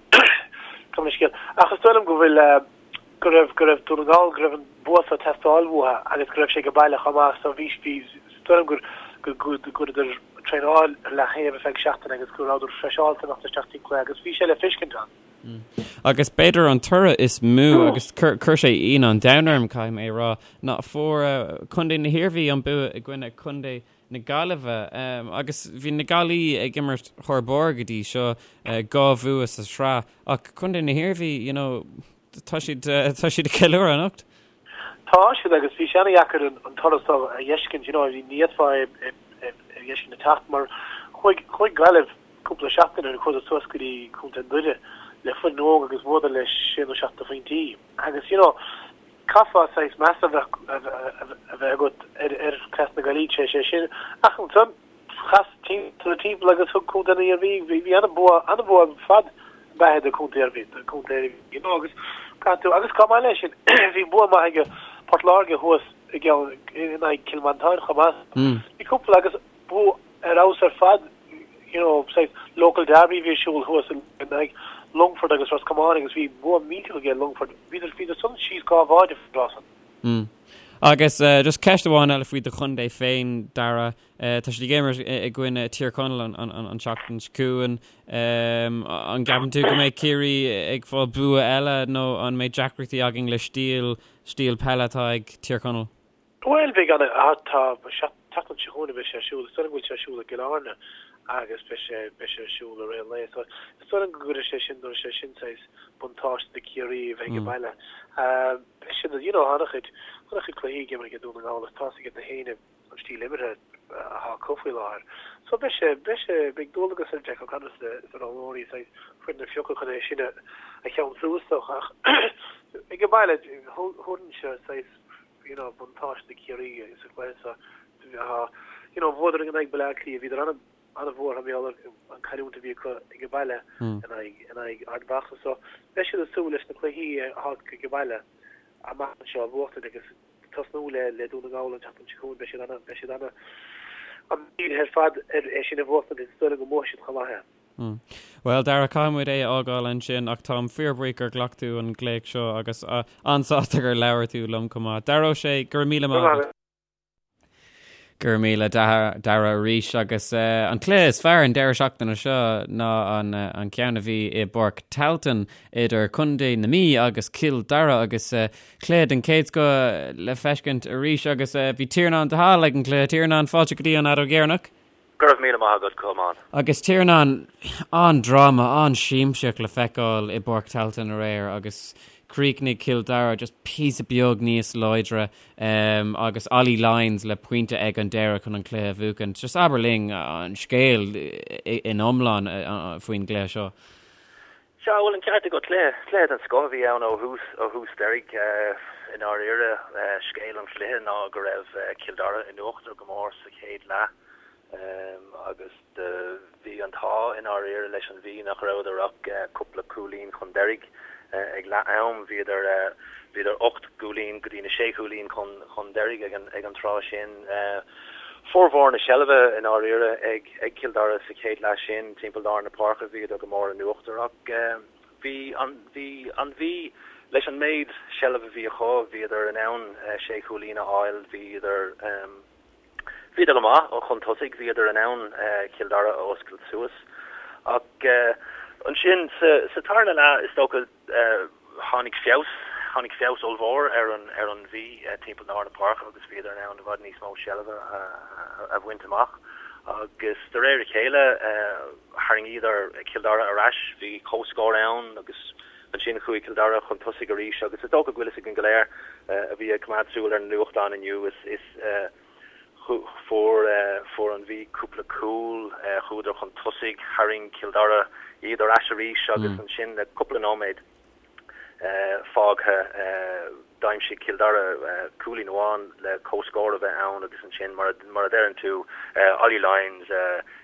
gabh mo leithscéal. Ach is dóigh liom go bhfuil, go raibh, go raibh Dún na nGall, go raibh an bua so ag teastáil uathu agus go raibh sé ag baile chomh maith so bhí, bhí, is dóigh liom gur, go, go, go gcuireadar traenáil ar leaththaobh ar feadh seachtaine agus go rabhadar freiseáilte imeacht isteach dtí'n cluiche agus bhí sé le feiscint ann. Agus b'fhéidir an toradh is mó agus chuir sé ionadh an domhain orm, caithfidh mé a rá, ná fuair Contae na hIarmhí an bua i gcoinne Contae na Gaillimhe agus bhí na Gaillí ag imirt thar barr go dtí seo, 2 bhua sa sraith ach Contae na hIarmhí, you know, tá siad tá siad ag ceiliúradh anocht. Tá siad agus bhí sé ana-dheacair an toradh seo a fheiscint, you know, ní fhéadfá é a fheiscint ag teacht mar chuaigh chuaigh Gaillimh cúpla seachtain ó shin chuadar suas go dtí Contae Dhoire le foireann óg agus bhuadar le sé nó seacht de phointí agus you know caithfeá saghas meas a bheith a bheith agat ar ar chleas na Gaillí tar éis é sin ach ansan chas timpeall agus thug Contae na hIarmhí, bhí an-bhua, an-bhua ar fad beatha do Contae Iarmhí, do Contae Iarmhí, you know, agus caithfidh tú, agus chomh maith leis sin, bhí bua maith ag Port Láirge thuas i gceann, in aghaidh Cill Mhantáin chomh maith. Bhí cúpla agus bua ar fheabhas ar fad, you know, saghas local derby a bhí ar siúl thuas in aghaidh. Longfort agus Ros Comáin agus bhí bua millteach aige Longfort. Bhíodar bhíodar san síos 2 bháide faoin dtráth san. Mm. Agus just ceist amháin eile faoi do chontae féin, Dara. Tá siad ag imirt i gcoinne Tír Chonaill an tseachtain seo chugainn. An gceapann tú go mbeidh Ciarraí ag fáil bua eile nó an mbeidh deacrachtaí againn le stíl stíl peile atá ag Tír Chonaill? Bhuel, beidh an, tá, seachtain seo chugainn a bheidh sé ar siúl, is dóigh liom go bhfuil sé ar siúl i gCill Airne agus beidh sé, beidh sé ar siúl i rith an lae. So, is dóigh liom go gcuirfidh sé sin, tabharfaidh sé sin saghas buntáiste do Chiarraí a bheith ag baile. Beidh siad, you know, an-chuid, an-chuid cluichí ag imirt ag Dún na nGall agus tá's ag na héinne an stíl imeartha atá acu faoi láthair. So beidh sé, beidh sé, beidh dualgas ar Jack O'Connor is na roghnóirí saghas foireann a phiocadh chun é sin a, a cheansú is dócha ach ag an baile, thabharfainnse saghas you know, buntáiste do Chiarraí sa chluiche seo. You know, bhuadar in aghaidh Baile Átha Cliath, bhíodar ana, ana-bhuartha mar gheall ar an cailliúint a bhí acu ag an baile in aghaidh, in aghaidh Ard Mhacha. So, beidh siad ag súil leis na cluichí atá acu ag an baile amach anseo a bhuachtaint agus tosnú le, le Dún na nGall an tseachtain seo chugainn. Beidh siad ana, beidh siad ana, an-dírithe ar fad ar é sin a bhuachtaint agus is dóigh liom go mbuafaidh siad chomh maith é. Bhuel, Dara, caithfidh muid é a fhágáil ansin ach táim fíorbhuíoch gur ghlac tú an glaoch seo agus an-sásta gur labhair tú liom chomh maith. Dara Ó Sé, go raibh míle maith agat. Go raibh míle Dara arís agus an cluiche is fearr an deireadh seachtaine seo ná an ceann a bhí i bPáirc Tailteann idir Contae na Mí agus Cill Dara agus cluiche den chéad scoth le feiscint arís agus bhí Tiarnán de Hál ag an gcluiche. Tiarnán, fáilte go dtí an Fheadóg Dheireanach. Go raibh míle maith agat, Colmán. Agus Tiarnán, an-dráma, an-siamsaíocht le feiceáil i bPáirc Tailteann aréir agus chríochnaigh Cill Dara just píosa beag níos láidre agus Ollie Lyons le pointe ag an deireadh chun an cluiche a bhuachaint. Just abair linn an scéal in iomlán faoin gcluiche seo. Sea, bhuel, an ceart agat, cluiche, cluiche den scoth a bhí ann ó thús, ó thús deiridh. I ndáiríre, scéal an chluiche ná go raibh Cill Dara in uachtar go mór sa chéad leath agus bhí an t-ádh i ndáiríre leis an Mhí nach rabhadar ach cúpla cúilín chun deiridh ag leath am. Bhíodar, bhíodar 8 gcúilín go dtí na sé chúilín chun, chun deiridh ag an, ag an tráth sin. Formhór na seilbhe i ndáiríre ag Cill Dara sa chéad leath sin, timpeall lár na páirce bhíodar go mór in uachtar ach bhí an bhí an Mhí leis an méid seilbhe a bhí acu, bhíodar in ann sé chúilín a fháil, bhíodar bhíodar go maith chun tosaigh, bhíodar in ann Cill Dara a oscailt suas ach ansin sa tarna leath is dócha Tháinig feabhas, tháinig feabhas ollmhór ar an ar an Mhí timpeall lár na páirce agus bhíodar in ann i bhfad níos mó seilbhe a bhaint amach agus de réir a chéile tharraingíodar Cill Dara ar ais, bhí comhscór ann agus ansin chuaigh Cill Dara chun tosaigh arís agus is dócha go bhfuil fhios againn go léir a bhí ag coimeád súil ar na nuachtáin inniu is is Fuair fuair an Mhí cúpla cúl, chuadar chun tosaigh, tharraing Cill Dara iad ar ais arís agus ansin le cúpla nóiméad fágtha d'aimsigh Cill Dara cúilín amháin le comhscór a bheith ann agus ansin mar mar a deireann tú Ollie Lyons,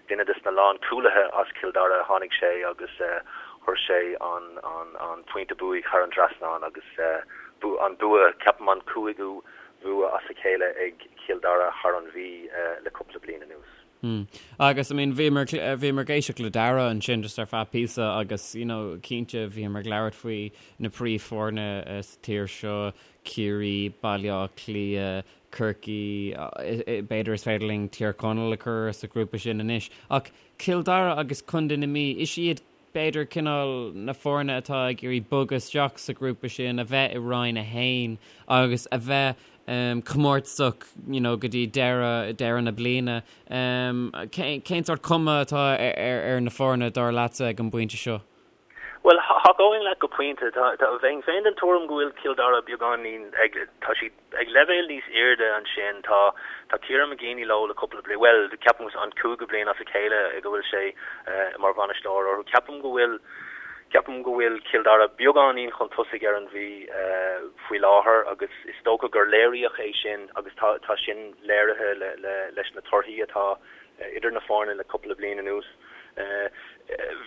duine des na lánchúlaithe as Cill Dara, tháinig sé agus chuir sé an an pointe buaidh thar an trasnán agus an bua, ceapaim an cúigiú bhua as a chéile ag Cill Dara thar an Mhí le cúpla bliain anuas. Mm. Agus I mean bhíomar bhíomar ag éisteacht le Dara ansin just ar feadh píosa agus you know cinnte bhíomar ag labhairt faoi na príomhfhoirne sa tír seo, Ciarraí, Baile Átha Cliath, Corcaigh, b'fhéidir is féidir linn Tír Chonaill a chur sa ghrúpa sin anois. Ach Cill Dara agus Contae na Mí, is iad b'fhéidir, cineál na foirne atá ag iarraidh bogadh isteach sa ghrúpa sin, a bheith i Roinn 1 agus a bheith comórtasach you know go dtí deireadh, deireadh na bliana. Cén sórt cuma atá ar na foirne, dar leatsa, ag an bpointe seo? Bhuel, thacóinn leat go pointe. Bheinn féin den tuairim go bhfuil Cill Dara beagáinín ag, tá siad ag leibhéal níos airde ansin. Tá tá Kieran McGeeney leo le cúpla bliain, bhuel, ceapaim an cúigiú bliain as a chéile go bhfuil sé mar bhainisteoir orthu. Ceapaim go bhfuil ceapaim go bhfuil Cill Dara beagáinín chun tosaigh ar an Mhí faoi láthair agus is dócha gur léiríodh é sin agus tá tá sin léirithe le le leis na torthaí atá idir na foirne le cúpla bliain anuas.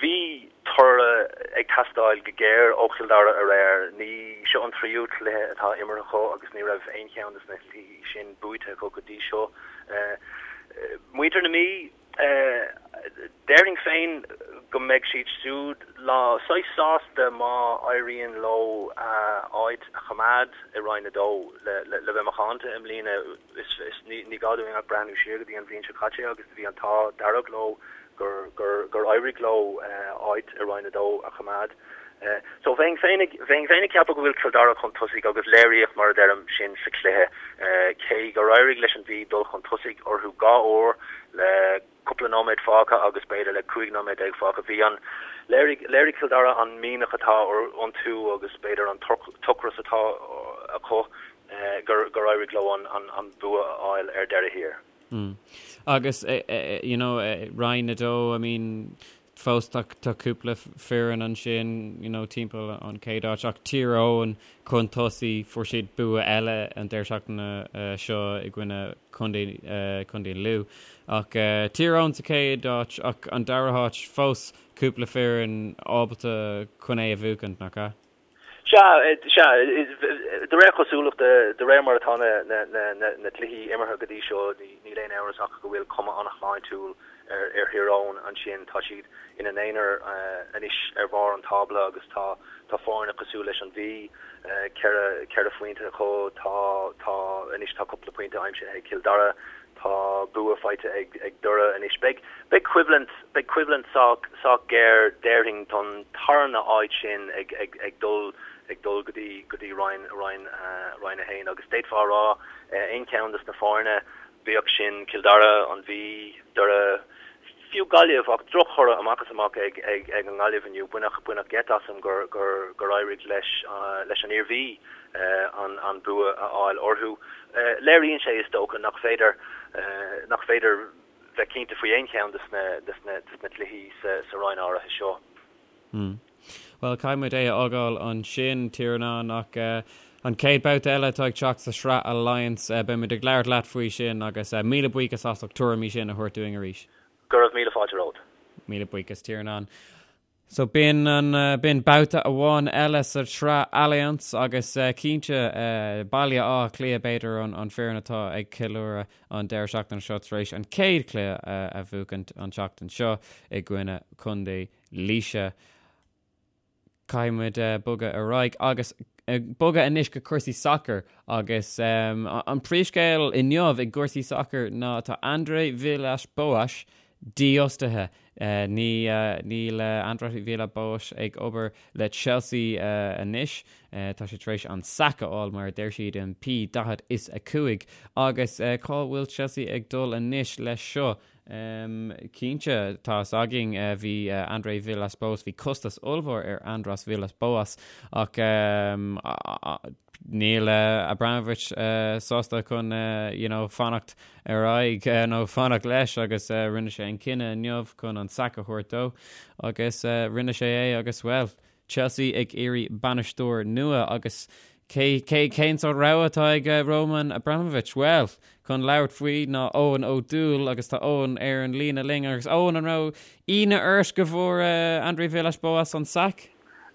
Bhí toradh ag teastáil go géar ó Chill Dara aréir. Ní seo an tríú cluiche atá imeartha acu agus ní raibh aon cheann de na cluichí sin buaite acu go dtí seo. Muintir na Mí, déarfainn féin. go mbeidh siad siúd lá saghas sásta má éiríonn leo áit a choimeád i Roinn 2. Le bheith macánta i mbliana, ní gá dúinn ach breathnú siar go dtí an bhliain seo caite agus bhí an t-ádh dearg leo gur éirigh leo áit i Roinn 2 a choimeád. So bheinn féin ag bheinn féin ag ceapadh go bhfuil Cill Dara chun tosaigh agus léiríodh mar a deirim sin sa chluiche cé gur éirigh leis an Mhí dul chun tosaigh orthu dhá uair le cúpla nóiméad fágtha agus b'fhéidir le 15 nóiméad fágtha. Bhí an, léirigh, léirigh Cill Dara an mianach atá iontu agus b'fhéidir an t-ocras atá acu gur, gur éirigh leo an, an, an bua a fháil ar deireadh thiar. Mm. Agus, you know, Roinn 2, I mean, fós tá, tá cúpla foireann ansin, you know, timpeall an chéad áit ach Tír Eoghain chun tosaigh, fuair siad bua eile an deireadh seachtaine seo i gcoinne Contae, Contae Lú. Ach Tír Eoghain sa chéad áit ach an dara háit fós cúpla foireann ábalta chun é a bhuachaint, nach ea? Sea, sea. De réir cosúlachta, de réir mar atá na cluichí imeartha go dtí seo, níl aon amhras ach go bhfuil cuma an-shláintiúil ar Thír Eoghain ansin. Tá siad ina n-aonar anois ar bharr an tábla agus tá tá foirne cosúil leis an Mhí, 4 phointe acu, tá tá anois tá cúpla pointe aimsithe ag Cill Dara, Tá bua faighte ag Doire anois. Beidh beidh coimhlint beidh coimhlint sách sách géar déarfainn don tarna áit sin ag ag ag dul ag dul go dtí go dtí Roinn Roinn Roinn 1 agus d'fhéadfá a rá aon cheann des na foirne, bíodh sin Cill Dara, an Mhí, Doire, fiú Gaillimh ach drochthoradh amach is amach ag ag ag an nGaillimh inniu. Baineadh baineadh geit asam gur gur gur éirigh leis leis an Iarmhí an an bua a fháil orthu. Léiríonn sé is dócha nach féidir nach féidir bheith cinnte faoi aon cheann des na des na des na cluichí sa sa roinn áirithe seo. Bhuel, caithfidh muid é a fhágáil ansin, Tiarnán, ach an chéad babhta eile atá ag teacht sa Sraith Allianz, beidh muid ag labhairt leat faoi sin agus míle buíochas as ucht tuairimí sin a thabhairt dúinn arís. Go raibh míle fáilte romhat. Míle buíochas, Tiarnán. So b'in an, b'in babhta amháin eile sa tSraith Allianz agus cinnte Baile Átha Cliath b'fhéidir an an foireann atá ag ceiliúradh an deireadh seachtaine seo tar éis an chéad chluiche a bhuachaint an tseachtain seo i gcoinne Contae Laoise. Caithfidh muid bogadh ar aghaidh agus bogadh anois go cúrsaí sacair agus an príomhscéal inniu i gcúrsaí sacair ná tá André Villas-Boas dífhostaithe. Ní níl André Villas-Boas ag obair le Chelsea anois. Tá sé tar éis an sack a fháil mar a deir siad in P45 agus cá bhfuil Chelsea ag dul anois leis seo? Cinnte, tá fhios againn, bhí André Villas-Boas, bhí costas ollmhór ar Andrés Villas-Boas ach níl Abramovich sásta chun you know fanacht ar aghaidh nó fanacht leis agus rinne sé an cinneadh inniu chun an sack a thabhairt dó agus rinne sé é agus bhuel, Chelsea ag iarraidh bainisteoir nua agus cé, cé, cén sórt rogha atá ag Roman Abramovich? Bhuel, chun labhairt faoi ná Eoin Ó Dúill agus tá Eoin ar an líne linn agus Eoin, an raibh ionadh ort go bhfuair André Villas-Boas an sack?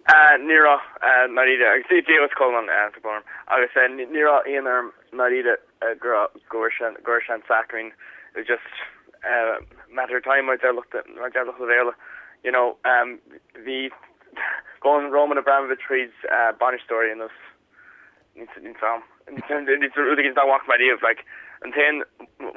Ní raibh, ndáiríre, agus Dia duit a Cholmáin, tá brón orm, agus ní raibh ionadh orm ndáiríre go bhfuair sé, go bhfuair sé an sack, I mean, it was just matter of time mar deir lucht mar deir lucht an Bhéarla, you know, bhí gabhann Roman Abramovich tríd bainisteoirí anuas níl 's a'm, rud éigin nach bhfaca mé riamh, like, an t-aon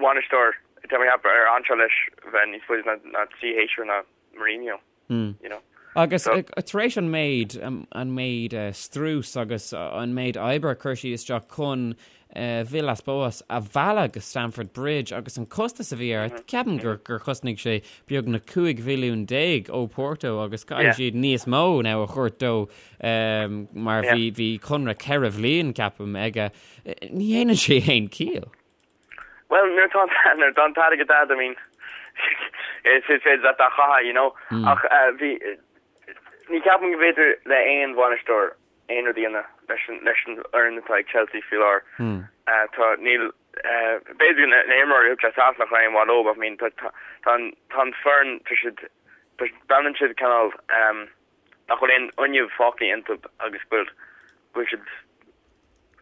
bhainisteoir tá mé ag ceapadh ar fhan sé leis bheith níos faide ná 3 shéasúr ná Mourinho. You know. Agus tar éis an méid, an méid strús agus an méid oibre a chuir siad isteach chun Villas-Boas a mhealladh go Stamford Bridge agus an costas a bhí air, ceapaim gur gur chosnaigh sé beagnach 15 mhilliún ó Porto agus caithfidh siad níos mó now a thabhairt dó mar bhí bhí conradh ceithre bhliain ceapaim aige. Ní dhéanann sé aon chiall. Bhuel, nuair atá an nuair atá an t-airgead a'd, I mean, is is féidir leat é a chaitheamh, you know. Ach bhí, ní ceapaim go bhféidir le aon bhainisteoir aon rud a dhéanamh leis an leis an fhoireann atá ag Chelsea faoi láthair. Tá, níl, b'fhéidir na na himreoirí a thug sé isteach nach raibh aon mhaith leo, but I mean, tá tá tá an tá an foireann, tá siad, tá breathnaíonn siad cineál nach bhfuil aon fhuinneamh fágtha iontu agus go bhfuil go bhfuil siad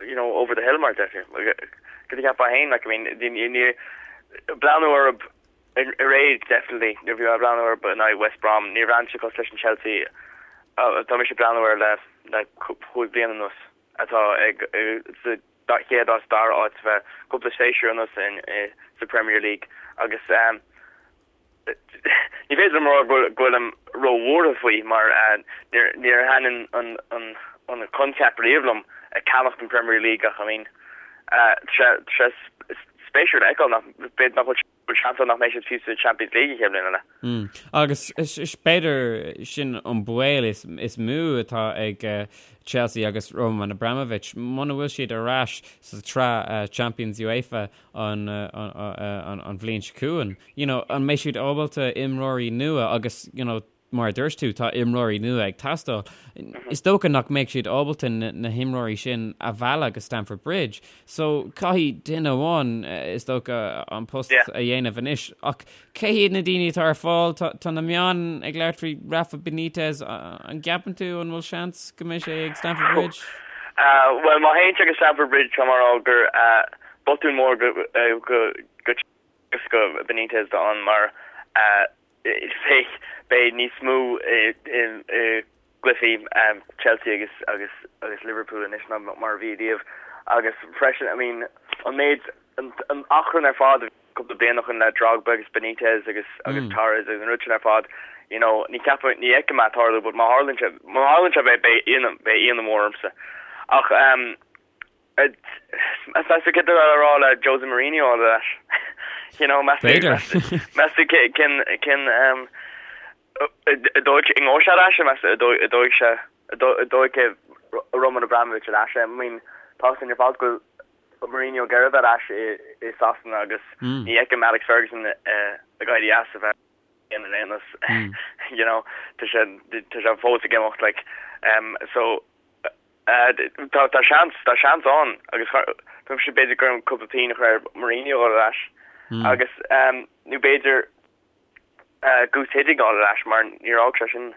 you know, over the hill mar deirtear. Cad a cheapfá féin, like, I mean, ní, ní, breathnú orthu. Aréir definitely nuair a bhí mé ag breathnú air in aghaidh West Brom níor bhreathnaigh sé cosúil leis an Chelsea atá mise ag breathnú air le le chúig bliana anuas atá ag sa chéad áit dara áit le cúpla séasúr anuas in sa Premier League agus ní féidir liom a rá go bhfuilim róbhuartha faoi mar níor níor thaitin an an an coincheap riamh liom ag ceannacht an Premier League ach I mean tá sé spéisiúil a fheiceáil nach b'fhéidir nach bhfuil bhfuil seans ann nach mbeidh siad fiú sa Champions League an chéad bhliain eile. Agus b'fhéidir sin an baol is mó atá ag Chelsea agus Roman Abramovich, muna bhfuil siad ar ais sa tsraith Champions UEFA an bhliain seo chugainn, you know, an mbeidh siad ábalta imreoirí nua agus, you know, Mar a dúirt tú, tá imreoirí nua ag teastáil. Is dócha nach mbeidh siad ábalta na himreoirí sin a mhealladh go Stamford Bridge. So, caithfidh duine amháin, is dócha, an post a dhéanamh anois. Ach cé hiad na daoine atá ar fáil? Tá na meáin ag labhairt faoi Rafa Benitez. An gceapann tú an bhfuil seans go mbeidh sé ag Stamford Bridge? Bhuel, má théann sé go Stamford Bridge, tá mé ag rá gur botún mór go go Benitez ann mar Beidh beidh níos mó i gcluichí Chelsea agus agus agus Liverpool anois ná mar a bhí riamh agus freisin I mean an méid an achrann ar fad cúpla bliain ó shin le Drogba agus Benitez agus agus Torres agus an rud sin ar fad you know ní ceapaim ní fheicim é ag tarlú but má tharlaíonn sé má tharlaíonn sé beidh beidh ionadh beidh ionadh mór ormsa ach um Meas tú céard atá le rá le Jose Mourinho a fháil ar ais? You know, meas tú meas tú cén cén an dóigh an ngabhfaidh sé ar ais meas tú an dóigh sé an dtógfaidh Roman Abramovich ar ais é? I mean, tá a fhios againn ar fad go bhfuil Mourinho ag iarraidh a bheith ar ais i Sasana agus ní fheicim Alex Ferguson ag éirí as a bheith in aon nós. You know, tá sé tá sé fós ag imeacht like so Tá tá seans, tá seans ann agus tá sé b'fhéidir gur cúpla pingin a chur ar Mourinho a dhul ar ais agus nó b'fhéidir Guus Hiddink a fháil ar ais mar níor fhág sé sin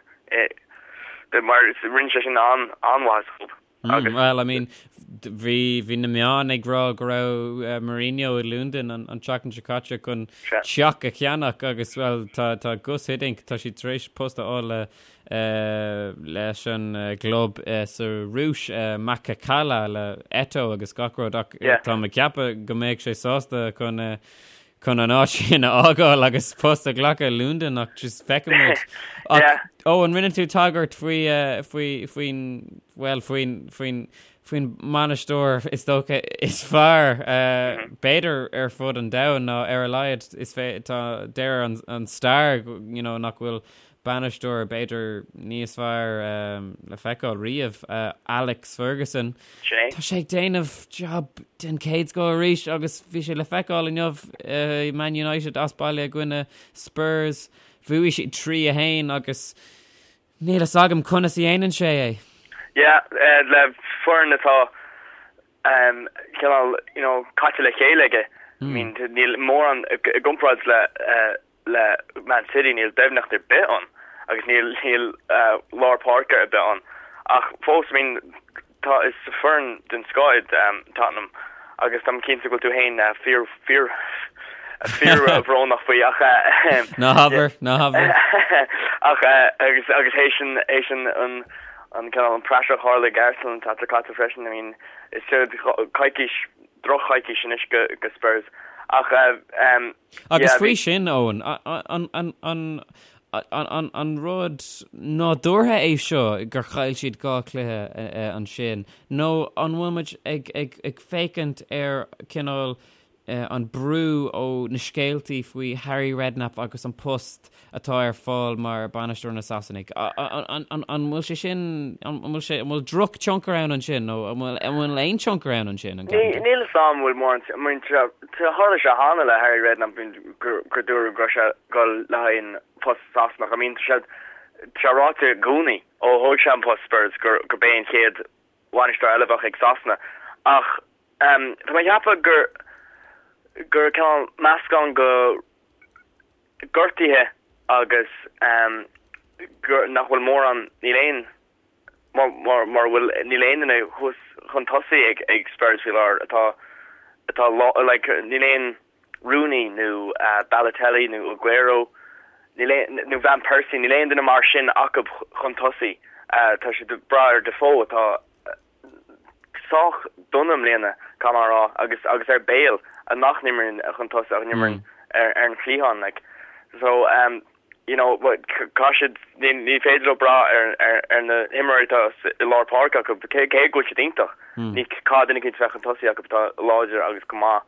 mar rinne sé sin an-mhaith sa chlub. Agus Well, I mean, bhí bhí na meáin ag rá go raibh Mourinho i Londain an tseachtain seo caite chun teach a cheannach agus well tá tá Guus Hiddink tá sé tar éis post a fháil le leis an gclub sa Rúis, Makhachkala le Eto'o agus gach rud ach tá mé ag ceapadh go mbeadh sé sásta chun chun an áit sin a fhágáil agus post a ghlacadh i Londain ach just feicfimid. Ach ó an rinne tú tagairt faoi faoi faoin bhuel faoin faoin faoin mbainisteoir is dócha is fearr b'fhéidir ar fud an domhain nó ar a laghad is tá deir an an stair you know nach bhfuil bainisteoir b'fhéidir níos fearr le feiceáil riamh, Alex Ferguson. Tá sé ag déanamh job den chéad scoth arís agus bhí sé le feiceáil inniu i Man United as baile i gcoinne Spurs. Bhuaigh siad 3-1 agus níl fhios agam conas a dhéanann sé é. Yeah, le foireann atá cineál, you know, caite le chéile aige. I mean, níl mórán i gcomparáid le le Man City níl doimhneacht ar bith ann agus níl níl lár páirce ar bith ann ach fós I mean tá is foireann den scoth iad Tottenham agus táim cinnte go bhfuil tú féin fíor fíor fíor bhrónach faoi ach Ná habair, ná habair. ach agus agus théis an théis an an an cineál an praiseach a tharla ag Arsenal an tseachtain seo caite freisin I mean is coicís droch-choicís anois go go Spurs ach Agus faoi sin, Eoin, an rud nádúrtha é seo gur chaill siad 2 chluiche ansin, nó an bhfuil muid ag féachaint ar cineál an brú ó na scéaltaí faoi Harry Redknapp agus an post atá ar fáil mar bainisteoir na Sasanaigh? An bhfuil sé sin, an bhfuil sé, an bhfuil drochthionchar ann ansin nó an bhfuil, an bhfuil aon tionchar ann ansin? An ceapann tú? Níl fhios a'm an bhfuil mórán, I mean tharla sé cheana le Harry Redknapp gur gur dúradh go raibh sé ag dul le haghaidh an post Sasanach. I mean tá sé tá sé ráite i gcónaí ó thóg sé an post Spurs gur gurb é an chéad bhainisteoir eile a bheadh ag Sasana ach tá mé ag ceapadh gur gur cineál meascán go gortuithe agus gur nach bhfuil mórán, níl aon, mar mar bhfuil, níl aon duine thuas chun tosaigh ag ag Spurs faoi láthair atá atá like níl aon. Rooney nó Balotelli nó Aguero níl aon, nó Van Persie, níl aon duine mar sin acu chun tosaigh. Tá siad ag brath ar Defoe atá sách dona i mbliana, caithfidh mé a rá, agus agus ar Bale nach n-imríonn chun tosaigh ach imríonn ar ar an chliathán like. So um, you know, caithfidh siad, ní ní féidir leo brath ar ar ar na himreoirí atá i lár páirce acu, cé cé go bhfuil siad iontach. Ní caithfidh duine eicínt a bheith chun tosaigh acu atá láidir agus go maith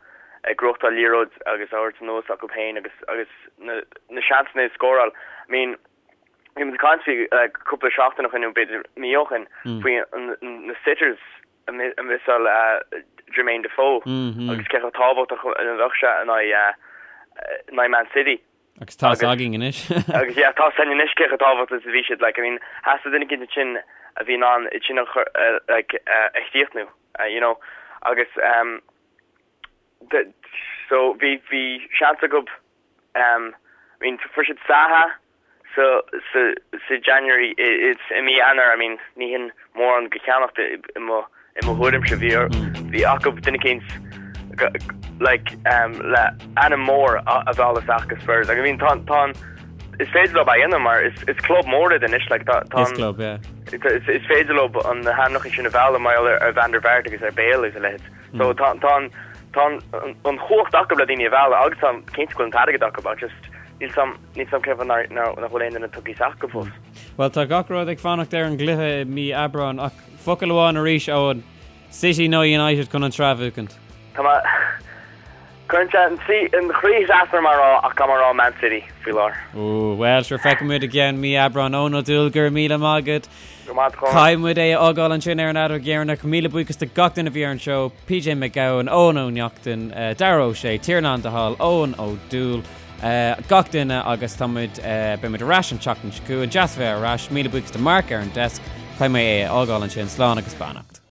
ag gnóthachtáil liathróid agus á thabhairt anuas acu féin agus agus na na seansanna a scóráil. I mean, bhí muid ag caint faoi like cúpla seachtain ó shin nó b'fhéidir mí ó shin faoi na sitters a mhiosáil Jermaine Defoe agus cé chomh tábhachtach a bheadh sé in aghaidh in aghaidh Man City. Agus tá 's againn anois. Agus yeah, tá 's againn anois cé chomh tábhachtach is a bhí siad like I mean theastaigh duine eicínt ansin a bhí in ann iad sin a chur like a chríochnú you know agus um so bhí bhí seans acu um I mean fuair siad Zaha sa sa sa January it's i mí Eanáir I mean ní hin mórán de cheannacht i mo i mo thuairimse bhí bhí acu duine eicínt like um le ainm mór a a mhealladh isteach go Spurs like I mean tá tá an is féidir leo é a dhéanamh mar is is club mór iad anois like tá tá Is club yeah. is is féidir leo an na hainmneacha sin a mhealladh mar gheall ar ar Van der Vaart agus ar Bale agus a leithéid. So tá tá an tá an an chumhacht acu le daoine a mhealladh agus tá cinnte go bhfuil an t-airgead acu ach just níl 's a'm níl 's a'm cén fáth nár nár nach bhfuil aon duine tugtha isteach acu fós. Bhuel tá gach rud ag fanacht ar an gcluiche i mí Aibreáin ach focal amháin arís Eoin, City nó United chun an tsraith a bhuachaint? Tá mé Cuireann sé an tslí an chroí trasna orm a rá ach caithfidh mé a rá Man City faoi láthair. Ó bhuel sure feicfidh muid i gceann mí Aibreáin Eoin Ó Dúill go raibh míle maith agat. Go maith a Chonaill. Caithfidh muid é a fhágáil ansin ar an fheadóg dheireanach. Míle buíochas do gach duine a bhí ar an seó, PJ Mac Gabhann, Eoin Ó Neachtain, Darragh Ó Sé, Tiarnán de Hál, Eoin Ó Dúill, gach duine agus tá muid, beidh muid ar ais an tseachtain seo chugainn. Deas a bheith ar ais. Míle buíochas do Mark ar an desk. Caithfidh mé é a fhágáil ansin. Slán agus beannacht.